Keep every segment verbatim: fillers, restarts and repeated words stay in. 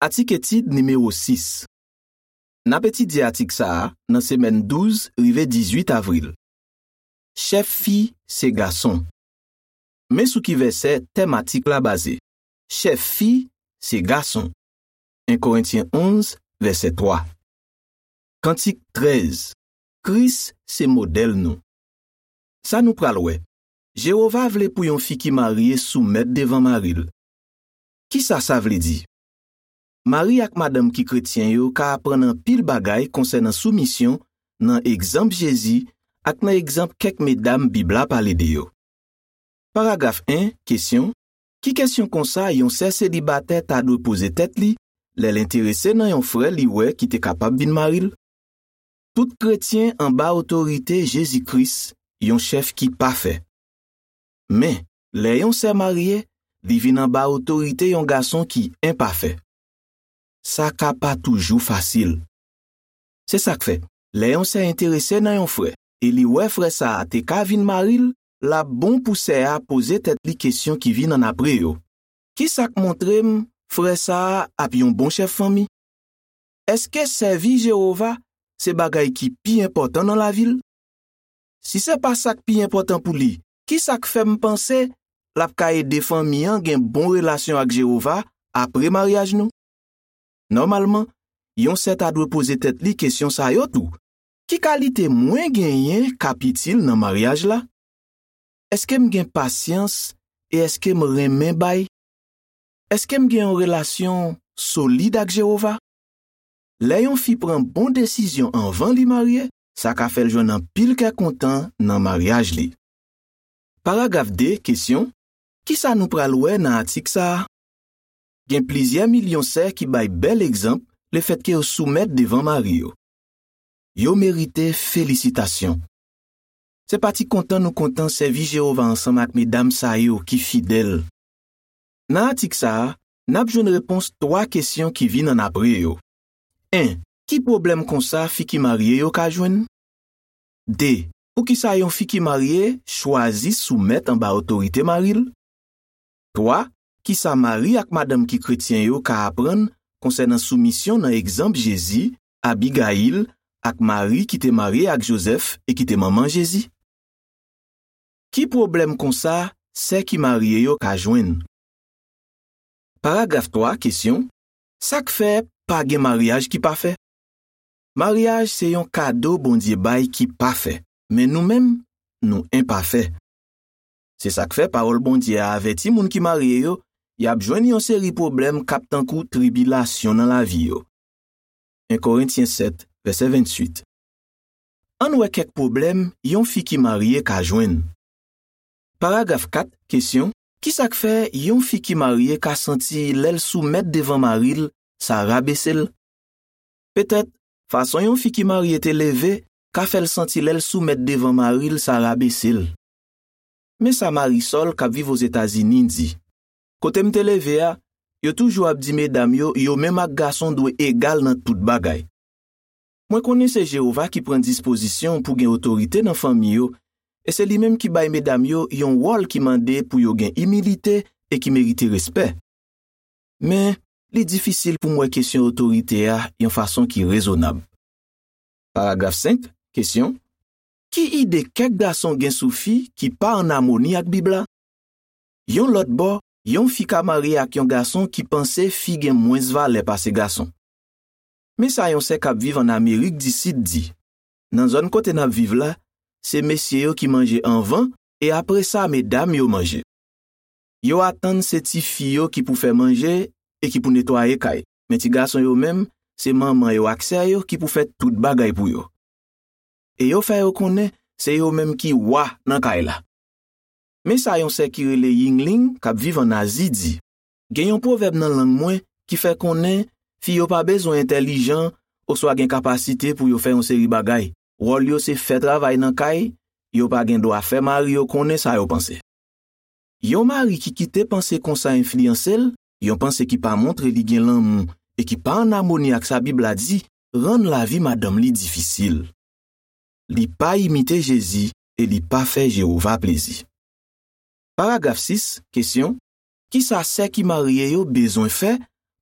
Atik etid nimewo sis. N ap etidye atik sa a nan semèn douz rive dizuit avril. Chèf fi se gason. Men sou ki vèsè tèm atik la baze. Chèf fi se gason. En Korentyen onz, vèsè twa. Kantik trèz. Kris se modèl nou. Sa nou pral wè. Jewova vle pou yon fi ki marye soumèt devan mari l. Ki sa sa vle di? Mari ak madanm ki kretyen yo ka aprann anpil bagay konsènan soumisyon nan egzanp Jezi ak nan egzanp kèk medam Bib la pale de yo. Paragraf en, kesyon. Ki kesyon konsa yon sè selibatè ta dwe poze tèt li lè l enterese nan yon frè li wè ki te kapab vin mari l? Tout kretyen anba otorite Jezi Kris, yon chèf ki pafè. Men, lè yon sè marye, li vin anba otorite yon gason ki enpafè. Sa ka pa toujou fasil. Se sa k fè, lè yon sè enterese nan yon frè e li wè frè sa a te ka vin mari l, l ap bon pou sè a poze tèt li kesyon ki vin annapre yo. Ki sa k montre m frè sa a ap yon bon chèf fanmi? Èske sèvi Jewova se bagay ki pi enpòtan nan lavi l? Si se pa sa k pi enpòtan pou li, ki sa k fè m panse l ap ka ede fanmi an gen bon relasyon ak Jewova apre maryaj nou? Nòmalman, yon sè ta dwe poze tèt li kesyon sa yo tou. Ki kalite mwen genyen k ap itil nan maryaj la? Èske m gen pasyans e èske m renmen bay? Èske m gen yon relasyon solid ak Jewova? Lè yon fi pran bon desizyon anvan li marye, sa ka fè l jwenn anpil kè kontan nan maryaj li. Paragraf de, kesyon. Ki sa nou pral wè nan atik sa a? Gen plizyè milyon sè ki bay bèl egzanp lefètke yo soumèt devan mari yo. Yo merite felisitasyon. Se pa ti kontan nou kontan sèvi Jewova ansanm ak medam sa yo ki fidèl. Nan atik sa a, n ap jwenn repons twa kesyon ki vin annapre yo. En, ki pwoblèm konsa fi ki marye yo ka jwenn? De, poukisa yon fi ki marye chwazi soumèt anba otorite mari l? Twa, ki sa mari ak madanm ki kretyen yo ka aprann konsènan soumisyon nan egzanp Jezi, Abigayil, ak Mari ki te marye ak Jozèf e ki te manman Jezi? Ki pwoblèm konsa sè ki marye yo ka jwenn? Paragraf twa, kesyon. Sa k fè pa gen maryaj ki pafè? Maryaj se yon kado Bondye bay ki pafè, men nou menm, nou enpafè. Se sa k fè pawòl Bondye a avèti moun ki marye yo, y ap jwenn yon seri pwoblèm k ap tankou tribilasyon nan lavi yo. En Korentyen sèt, vèsè venntuit. Ann wè kèk pwoblèm yon fi ki marye ka jwenn. Paragraf kat, kesyon. Ki sa k fè yon fi ki marye ka santi lè l soumèt devan mari l, sa rabese l? Petèt, fason yon fi ki marye te leve ka fè l santi lè l soumèt devan mari l, sa rabese l. Men sa Marisol, k ap viv Ozetazini, di: Kote m te leve a, yo toujou ap di medam yo, yo menm ak gason dwe egal nan tout bagay. Mwen konnen se Jewova ki pran dispozisyon pou gen otorite nan fanmi yo, e se li menm ki bay medam yo yon wòl ki mande pou yo gen imilite e ki merite respè. Men, li difisil pou m wè kesyon otorite a yon fason ki rezonab. Paragraf senk, kesyon. Ki ide kèk gason gen sou fi ki pa ann amoni ak Bib la? Yon lòt bò, yon fi ka marye ak yon gason ki panse fi gen mwens valè pase gason. Men sa yon sè k ap viv ann Amerik di Sid di: Nan zòn kote n ap viv la, se mesye yo ki manje anvan, e apre sa, medam yo manje. Yo atann se tifi yo ki pou fè manje e ki pou netwaye kay, men ti gason yo menm, se manman yo ak sè yo ki pou fè tout bagay pou yo. E yo fè yo konnen se yo menm ki wa nan kay la. Men sa yon sè ki rele Yingling, k ap viv ann Azi, di: Gen yon pwovèb nan lang mwen ki fè konnen fi yo pa bezwen entèlijan oswa gen kapasite pou yo fè yon seri bagay. Wòl yo se fè travay nan kay, yo pa gen dwa fè mari yo konnen sa yo panse. Yon mari ki kite panse konsa enfliyanse l, yon panse ki pa montre li gen lanmou e ki pa ann amoni ak sa Bib la di, rann lavi madanm li difisil. Li pa imite Jezi e li pa fè Jewova plezi. Paragraf sis, kesyon. Ki sa sè ki marye yo bezwen fè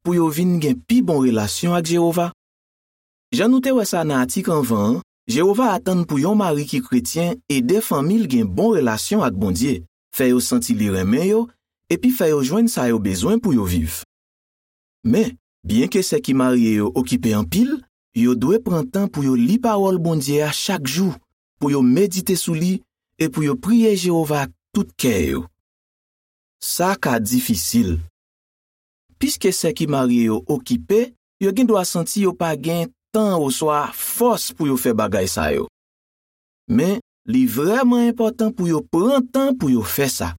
pou yo vin gen pi bon relasyon ak Jewova? Jan nou te wè sa nan atik anvan an, Jewova atann pou yon mari ki kretyen ede fanmi l gen bon relasyon ak Bondye, fè yo santi li renmen yo, epi fè yo jwenn sa yo bezwen pou yo viv. Men, byenke sè ki marye yo okipe anpil, yo dwe pran tan pou yo li Pawòl Bondye a chak jou, pou yo medite sou li e pou yo priye Jewova ak tout kè yo. Sa ka difisil. Piske sè ki marye yo okipe, yo gendwa santi yo pa gen tan oswa fòs pou yo fè bagay sa yo. Men, li vrèman enpòtan pou yo pran tan pou yo fè sa.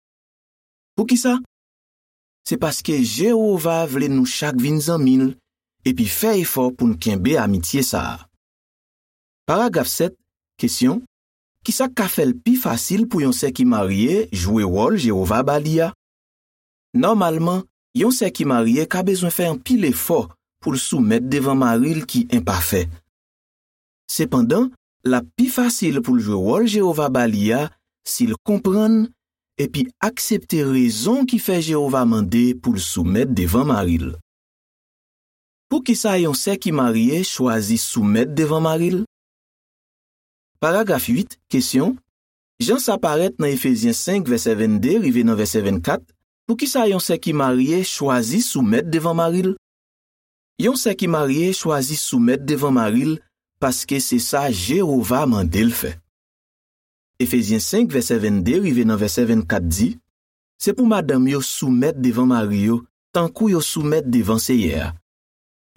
Poukisa? Se paske Jewova vle nou chak vin zanmi l epi fè efò pou n kenbe amitye sa a. Paragraf sèt, kesyon: ki sa k ka fè l pi fasil pou yon sè ki marye jwe wòl Jewova ba li a? Nòmalman, yon sè ki marye ka bezwen fè anpil efò pou l soumèt devan mari l ki enpafè. Sepandan, l ap pi fasil pou l jwe wòl Jewova ba li a si l konprann epi aksepte rezon ki fè Jewova mande pou l soumèt devan mari l. Poukisa yon sè ki marye chwazi soumèt devan mari l? Paragraf uit, kesyon: jan sa parèt nan Efezyen senk, vèsè vennde rive nan vèsè vennkat, poukisa yon sè ki marye chwazi soumèt devan mari l? Yon sè ki marye chwazi soumèt devan mari l paske se sa Jewova mande l fè. Efezyen senk, vèsè vennde rive nan vèsè vennkat di: se pou madanm yo soumèt devan mari yo, tankou yo soumèt devan Seyè a.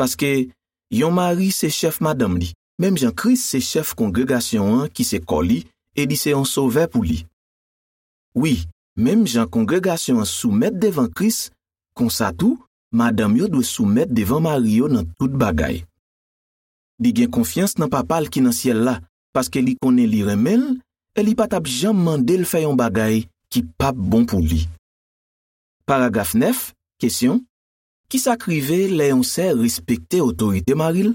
Paske, yon mari se chèf madanm li, menm jan Kris se chèf kongregasyon an ki se kò li, e li se yon sovè pou li. Wi, menm jan kongregasyon an soumèt devan Kris, konsa tou, madanm yo dwe soumèt devan mari yo nan tout bagay. Li gen konfyans nan Papa l ki nan syèl la, paske li konnen li renmen l, e li pa t ap janm mande l fè yon bagay ki p ap bon pou li. Paragraf nèf, kesyon: ki sa k rive lè yon sè respekte otorite mari l?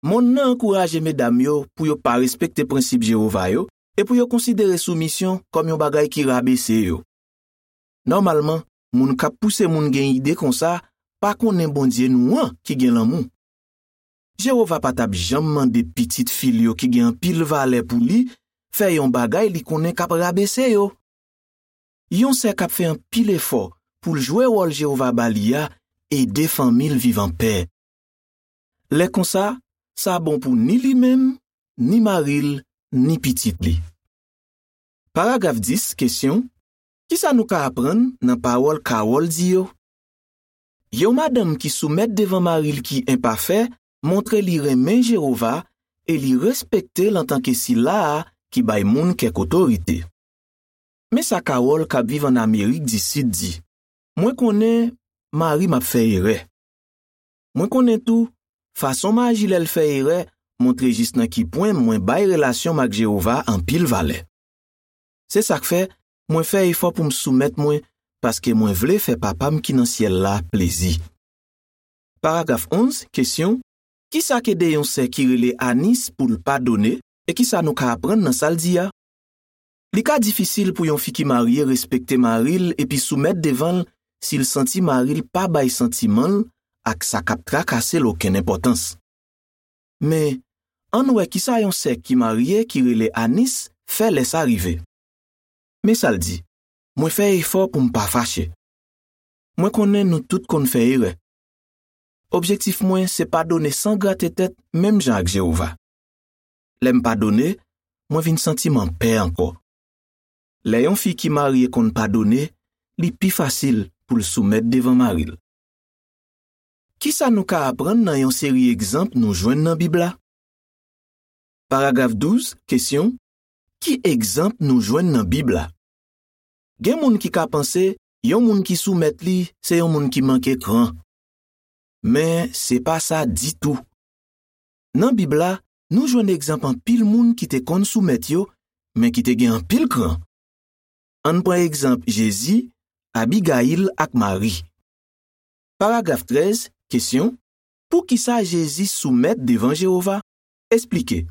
Monn nan ankouraje medam yo pou yo pa respekte prensip Jewova yo e pou yo konsidere soumisyon kòm yon bagay ki rabese yo. Nòmalman, moun k ap pouse moun gen ide konsa pa konnen Bondye nou an ki gen lanmou. Jewova pa t ap janm mande pitit fi l yo ki gen anpil valè pou li fè yon bagay li konnen k ap rabese yo. Yon sè k ap fè anpil efò pou l jwe wòl Jewova ba li a ede fanmi l viv anpè. Lè konsa, sa bon pou ni li menm, ni mari l, ni pitit li. Paragraf dis, kesyon: ki sa nou ka aprann nan pawòl Kawòl di yo? Yon madanm ki soumèt devan mari l ki enpafè montre li renmen Jewova e li respekte l antanke Sila a ki bay moun kèk otorite. Men sa Kawòl k ap viv ann Amerik di Sid di: mwen konnen mari m ap fè erè. Mwen konnen tou, fason m aji lè l fè erè montre jis nan ki pwen mwen bay relasyon m ak Jewova anpil valè. Se sa k fè, mwen fè efò pou m soumèt mwen, paske mwen vle fè Papa m ki nan syèl la plezi. Paragraf onz, kesyon: ki sa k ede yon sè ki rele Anis pou l padone, e ki sa nou ka aprann nan sa l di a? Li ka difisil pou yon fi ki marye respekte mari l epi soumèt devan l si l santi mari l pa bay santiman l ak sa k ap trakase l okenn enpòtans. Men, ann wè ki sa yon sè ki marye ki rele Anis fè lè sa rive. Men sa l di: mwen fè efò pou m pa fache. Mwen konnen nou tout konn fè erè. Objektif mwen se padone san grate tèt menm jan ak Jewova. Lè m padone, mwen vin santi m anpè ankò. Lè yon fi ki marye konn padone, li pi fasil pou l soumèt devan mari l. Ki sa nou ka aprann nan yon seri egzanp nou jwenn nan Bib la? Paragraf douz, kesyon: ki egzanp nou jwenn nan Bib la? Gen moun ki ka panse yon moun ki soumèt li se yon moun ki manke kran. Men, se pa sa ditou. Nan Bib la, nou jwenn egzanp anpil moun ki te konn soumèt yo, men ki te gen anpil kran. Ann pran egzanp Jezi, Abigayil ak Mari. Paragraf trèz, kesyon: poukisa Jezi soumèt devan Jewova? Esplike.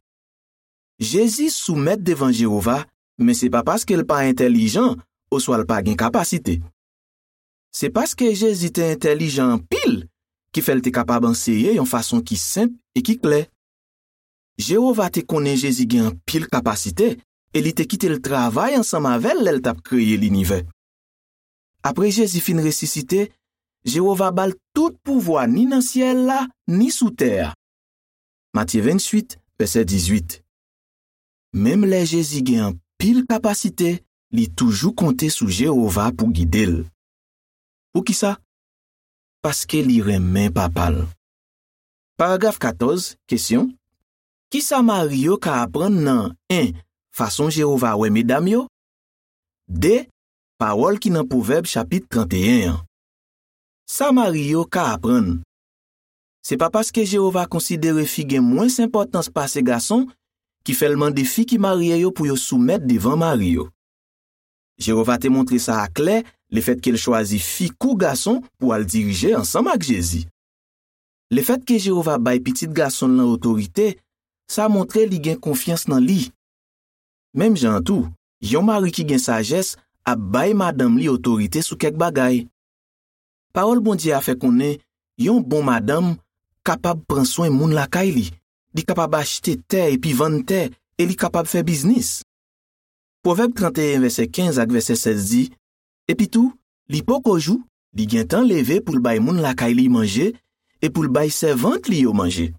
Jezi soumèt devan Jewova, men se pa paske l pa entèlijan oswa l pa gen kapasite. Se paske Jezi te entèlijan anpil ki fè l te kapab anseye yon fason ki senp e ki klè. Jewova te konnen Jezi gen anpil kapasite e li te kite l travay ansanm avè l lè l t ap kreye linivè. Apre Jezi fin resisite, Jewova ba l tout pouvwa ni nan syèl la, ni sou tè a. Matye venntuit, vèsè dizuit. Menm lè Jezi gen anpil kapasite, li toujou konte sou Jewova pou gide l. Poukisa? Paske li renmen Papa l. Paragraf katòz, kesyon. Kisa mari yo ka aprann nan, en, fason Jewova wè medam yo? De, pawòl ki nan Pwovèb chapit trannteyen an. Sa mari yo ka aprann. Se pa paske Jewova konsidere fi gen mwens enpòtans pase gason ki fè l mande fi ki marye yo pou yo soumèt devan mari yo. Jewova te montre sa aklè lefètke l chwazi fi kou gason pou al dirije ansanm ak Jezi. Lefètke Jewova bay Pitit Gason l lan otorite, sa montre li gen konfyans nan li. Menm jan an tou, yon mari ki gen sajès ap bay madanm li otorite sou kèk bagay. Pawòl Bondye a fè konnen yon bon madanm kapab pran swen moun lakay li, li kapab achte tè epi vann tè, e li kapab fè biznis. Pwovèb trannteyen, vèsè kenz ak vèsè sèz di, epitou, li poko jou, li gentan leve pou l bay moun lakay li manje, e pou l bay sèvant li yo manje.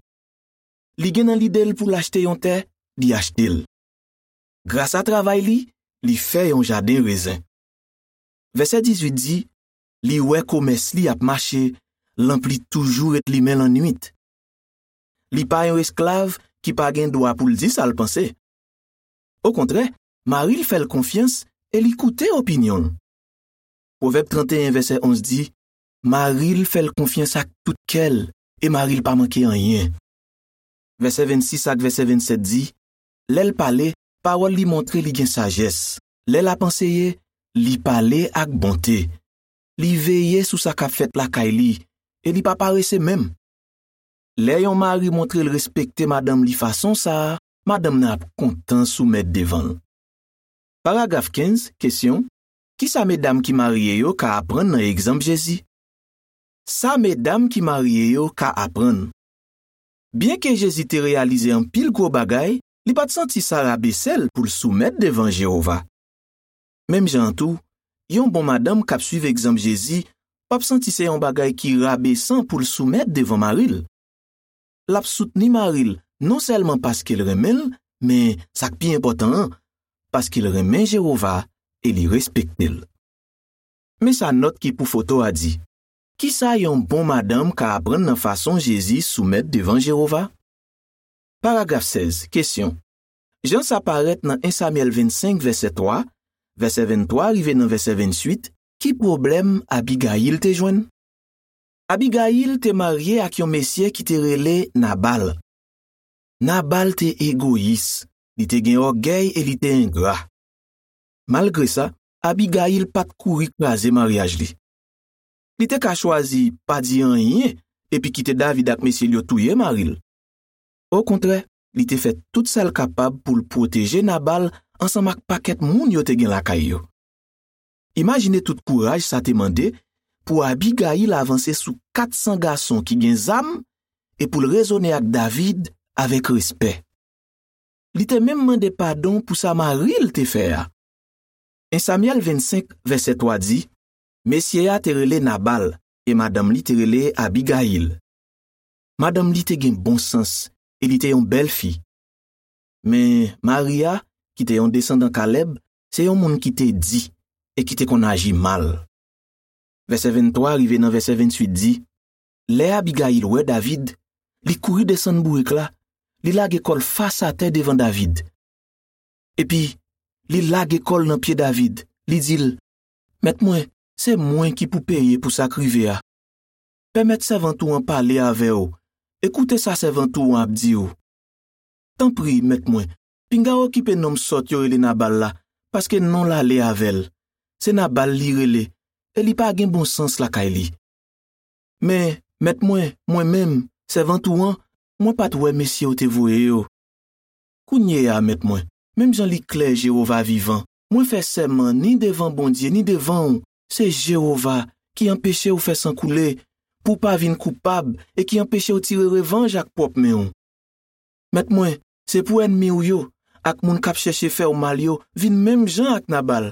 Li gen nan lide l pou l achte yon tè, li achte l. Grasa travay li, li fè yon jaden rezen. Vèsè dizuit di, li wè komès li ap mache, lanp li toujou ret limen lannwit. Li pa yon esklav ki pa gen dwa pou l di sa l panse. Okontrè, mari l fè l konfyans e li koute opinyon l. Pwovèb trannteyen, vèsè onz di, mari l fè l konfyans ak tout kè l, e mari l pa manke anyen. Vèsè vennsis ak vèsè vennsèt di, lè l pale, pawòl li montre li gen sajès. Lè l ap anseye, li pale ak bonte. Li veye sou sa k ap fèt lakay li, e li pa parese menm. Lè yon mari montre l respekte madanm li fason sa a, madanm nan ap kontan soumèt devan l. Paragraf kenz, kesyon, kisa medam ki marye yo ka aprann nan egzanp Jezi? Sa medam ki marye yo ka aprann. Byenke Jezi te reyalize anpil gwo bagay, li pa t santi sa rabese l pou l soumèt devan Jewova. Menm jan an tou, yon bon madanm k ap suiv egzanp Jezi p ap santi se yon bagay ki rabesan pou l soumèt devan mari l. L ap soutni mari l non sèlman paske l renmen l, men sa k pi enpòtan an, paske l renmen Jewova e li respekte l. Men sa nòt ki pou foto a di. Kisa yon bon madanm ka aprann nan fason Jezi soumèt devan Jewova? Paragraf sèz, kesyon. Jan sa parèt nan en Samyèl vennsenk, vèsè twa, vèsè venntwa rive nan vèsè venntuit, ki pwoblèm Abigayil te jwenn? Abigayil te marye ak yon mesye ki te rele Nabal. Nabal te egoyis, li te gen ògèy e li te engra. Malgre sa, Abigayil pa t kouri kraze maryaj li. Li te ka chwazi pa di anyen epi kite David ak mesye l yo touye mari l. Okontrè, li te fè tout sa l kapab pou l pwoteje Nabal ansanm ak pakèt moun yo te gen lakay yo. Imajine tout kouraj sa te mande pou Abigayil avanse sou kat san gason ki gen zam e pou l rezone ak David avèk respè. Li te menm mande padon pou sa mari l te fè a. En Samyèl vennsenk, vèsè twa di, mesye a te rele Nabal e madanm li te rele Abigayil. Madanm li te gen bon sans e li te yon bèl fi. Men mari a, ki te yon desandan Kalèb, se yon moun ki te di e ki te konn aji mal. Vèsè venntwa rive nan vèsè venntuit di, lè Abigayil wè David, li kouri desann bourik la, li lage kò l fas atè devan David. Epi, li lage kò l nan pye David, li di l, mèt mwen, se mwen ki pou peye pou sa k rive a. Pèmèt sèvant ou an pale avè w e koute sa sèvant ou an ap di w. Tanpri, mèt mwen, pinga w okipe nonm sòt yo rele Nabal la, paske non l ale avè l. Se Nabal li rele, e li pa gen bon sans lakay li. Men, mèt mwen, mwen menm, sèvant ou an, mwen pa t wè mesye w te voye yo. Kounye a, mèt mwen, menm jan li klè Jewova vivan, mwen fè sèman ni devan Bondye ni devan w, se Jewova ki anpeche w fè san koule, pou w pa vin koupab e ki anpeche w tire revanj ak pwòp men w. Mèt mwen, se pou ènmi w yo ak moun k ap chèche fè w mal yo vin menm jan ak Nabal.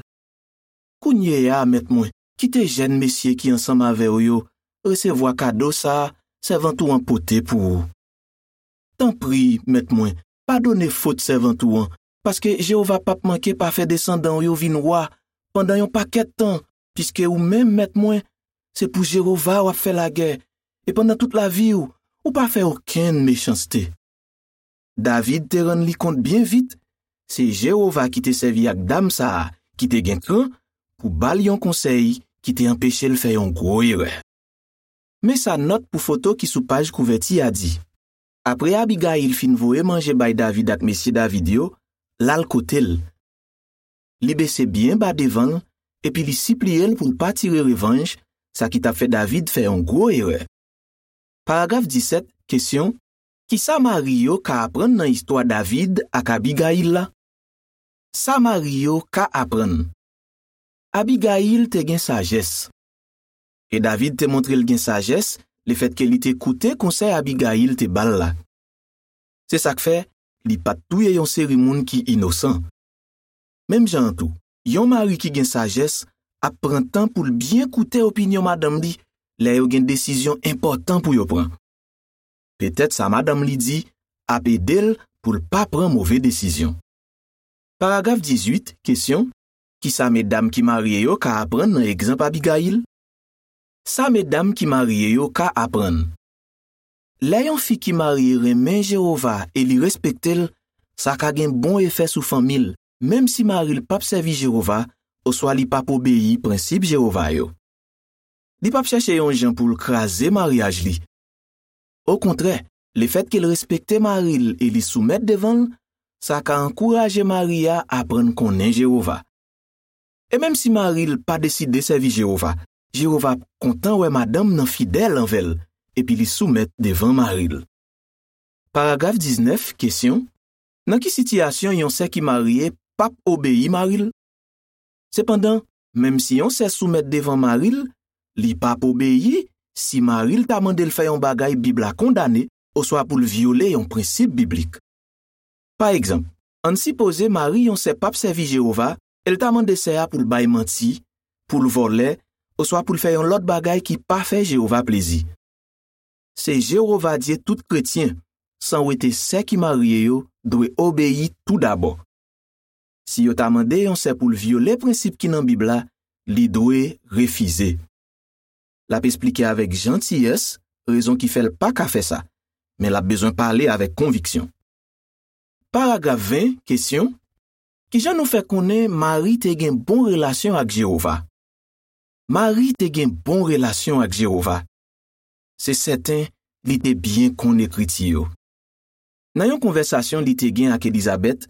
Kounye a, mèt mwen, kite jèn mesye ki ansanm avè w yo resevwa kado sa a sèvant ou an pote pou ou. Tanpri, mèt mwen, padone fot sèvant ou an, paske Jewova p ap manke pa fè desandan w yo vin wa pandan yon pakèt tan, piske ou menm, mèt mwen, se pou Jewova w ap fè lagè, e pandan tout lavi w, ou pa fè okenn mechanste. David te rann li kont byen vit, se Jewova ki te sèvi ak dam sa a ki te gen kran pou ba l yon konsèy ki te anpeche l fè yon gwo erè. Men sa nòt pou foto ki sou paj kouvèti a di: Apre Abigayil fin voye manje bay David ak mesye David yo, l al kote l. Li bese byen ba devan l, epi li sipliye l pou l pa tire revanj, sa ki t ap fè David fè yon gwo erè. Paragraf disèt, kesyon: Ki sa mari yo ka aprann nan istwa David ak Abigayil la? Sa mari yo ka aprann. Abigayil te gen sajès. E David te montre l gen sajès lefètke li te koute konsèy Abigayil te ba l la. Se sa k fè li pa t touye yon seri moun ki inosan. Menm jan an tou, yon mari ki gen sajès ap pran tan pou l byen koute opinyon madanm li lè yo gen desizyon enpòtan pou yo pran. Petèt sa madanm li di ap ede l pou l pa pran move desizyon. Paragraf dizuit, kesyon: Ki sa medam ki marye yo ka aprann nan egzanp Abigayil? Sa medam ki marye yo ka aprann. Lè yon fi ki marye renmen Jewova e li respekte l, sa ka gen bon efè sou fanmi l, menm si mari l p ap sèvi Jewova oswa li p ap obeyi prensip Jewova yo. Li p ap chèche yon jan pou l kraze maryaj li. Okontrè, lefètke l respekte mari l e li soumèt devan l, sa ka ankouraje mari a aprann konnen Jewova. E menm si mari l pa deside sèvi Jewova, Jewova ap kontan wè madanm nan fidèl anvè l epi li soumèt devan mari l. Paragraf diznèf, kesyon: Nan ki sitiyasyon yon sè ki marye p ap obeyi mari l? Sepandan, menm si yon sè soumèt devan mari l, li p ap obeyi si mari l ta mande l fè yon bagay Bib la kondane oswa pou l vyole yon prensip biblik. Pa egzanp, ann sipoze mari yon sè p ap sèvi Jewova e l ta mande sè a pou l bay manti, pou l vòlè, oswa pou l fè yon lòt bagay ki pa fè Jewova plezi. Se Jewova Dye tout kretyen, san wete sè ki marye yo, dwe obeyi toudabò. Si yo ta mande yon sè pou l vyole prensip ki nan Bib la, li dwe refize. L ap esplike avèk jantiyès rezon ki fè l pa ka fè sa, men l ap bezwen pale avèk konviksyon. Paragraf ven, kesyon: Ki jan nou fè konnen Mari te gen bon relasyon ak Jewova? Mari te gen bon relasyon ak Jewova. Se sèten, li te byen konn Ekriti yo. Nan yon konvèsasyon li te gen ak Elizabèt,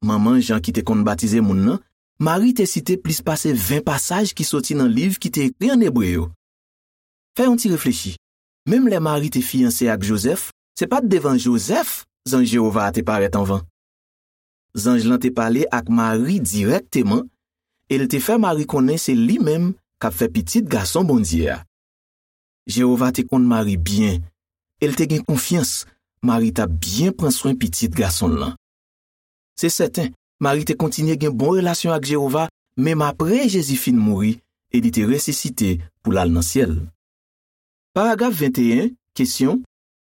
manman Jan ki te konn batize moun nan, Mari te site plis pase ven pasaj ki soti nan liv ki te ekri ann ebre yo. Fè yon ti reflechi. Menm lè Mari te fiyanse ak Jozèf, se pa t devan Jozèf zanj Jewova a te parèt anvan. Zanj lan te pale ak Mari dirèkteman e l te fè Mari konnen se li menm k ap fè Pitit Gason Bondye a. Jewova te konn Mari byen e l te gen konfyans Mari t ap byen pran swen Pitit Gason l lan. Se sèten, Mari te kontinye gen bon relasyon ak Jewova menm apre Jezi fin mouri e li te resisite pou l al nan syèl. Paragraf venteyen, kesyon: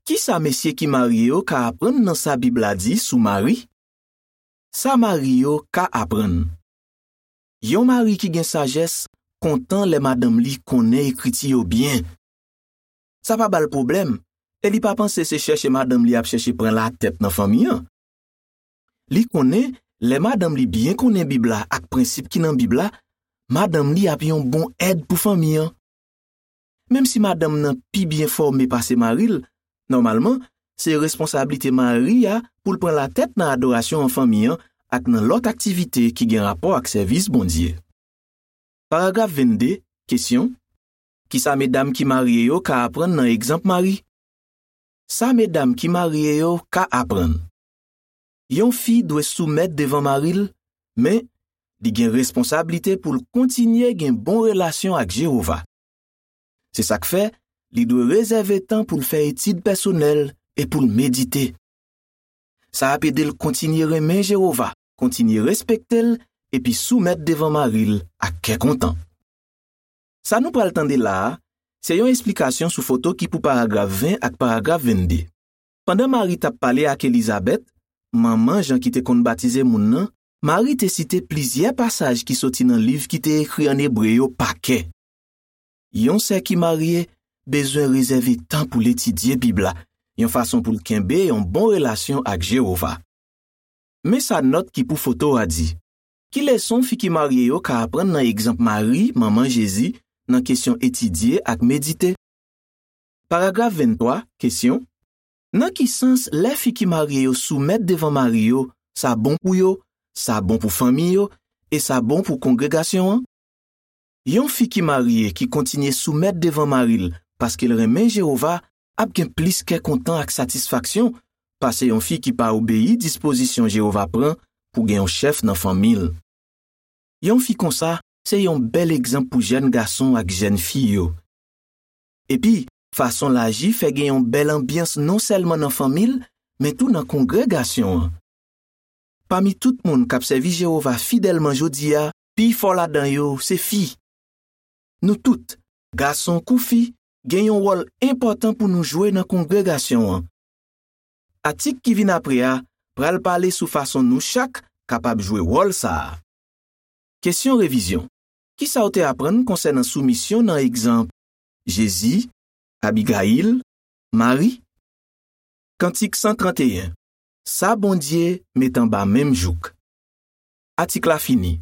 Ki sa mesye ki marye yo ka aprann nan sa Bib la di sou mari? Sa mari yo ka aprann. Yon mari ki gen sajès kontan lè madanm li konnen Ekriti yo byen. Sa pa ba l pwoblèm, e li pa panse se chèche madanm li ap chèche pran latèt nan fanmi an. Li konnen, lè madanm li byen konnen Bib la ak prensip ki nan Bib la, madanm li ap yon bon èd pou fanmi an. Menm si madanm nan pi byen fòme pase mari l, nòmalman, se responsablite mari a pou l pran latèt nan adorasyon an fanmi an ak nan lòt aktivite ki gen rapò ak sèvis Bondye. Paragraf vennde, kesyon: Ki sa medam ki marye yo ka aprann nan egzanp Mari? Sa medam ki marye yo ka aprann. Yon fi dwe soumèt devan mari l, men li gen responsablite pou l kontinye gen bon relasyon ak Jewova. Se sa k fè, Li dwe rezève tan pou l fè etid pèsonèl e pou l medite. Sa ap ede l kontinye renmen Jewova, kontinye respekte l, epi soumèt devan mari l ak kè kontan. Sa nou pral tande la a, se yon esplikasyon sou foto ki pou paragraf ven ak paragraf vennde. Pandan Mari t ap pale ak Elizabèt, manman Jan ki te konn batize moun nan, Mari te site plizyè pasaj ki soti nan liv ki te ekri ann ebre yo pa kè. Yon sè ki marye bezwen rezève tan pou l etidye Bib la, yon fason pou l kenbe yon bon relasyon ak Jewova. Men sa nòt ki pou foto a di. Ki leson fi ki marye yo ka aprann nan egzanp Mari, manman Jezi, nan kesyon etidye ak medite? Paragraf venntwa, kesyon. Nan ki sans lè fi ki marye yo soumèt devan mari yo, sa bon pou yo, sa bon pou fanmi yo, e sa bon pou kongregasyon an? Yon fi ki marye ki kontinye soumèt devan mari l paske l renmen Jewova ap gen plis kè kontan ak satisfaksyon pase yon fi ki pa obeyi dispozisyon Jewova pran pou gen yon chèf nan fanmi l. Yon fi konsa se yon bèl egzanp pou jèn gason ak jèn fi yo. Epi, fason l aji fè gen yon bèl anbyans non sèlman nan fanmi l, men tou nan kongregasyon an. Pami tout moun k ap sèvi Jewova fidèlman jodi a, pi fò ladan yo se fi. Nou tout, gason kou fi, gen yon wòl enpòtan pou nou jwe nan kongregasyon an. Atik ki vin apre a pral pale sou fason nou chak kapab jwe wòl sa a. Kesyon revizyon. Ki sa w te aprann konsènan soumisyon nan egzanp Jezi, Abigayil, Mari? Kantik san trannteyen. Sa Bondye met anba menm jouk. Atik la fini.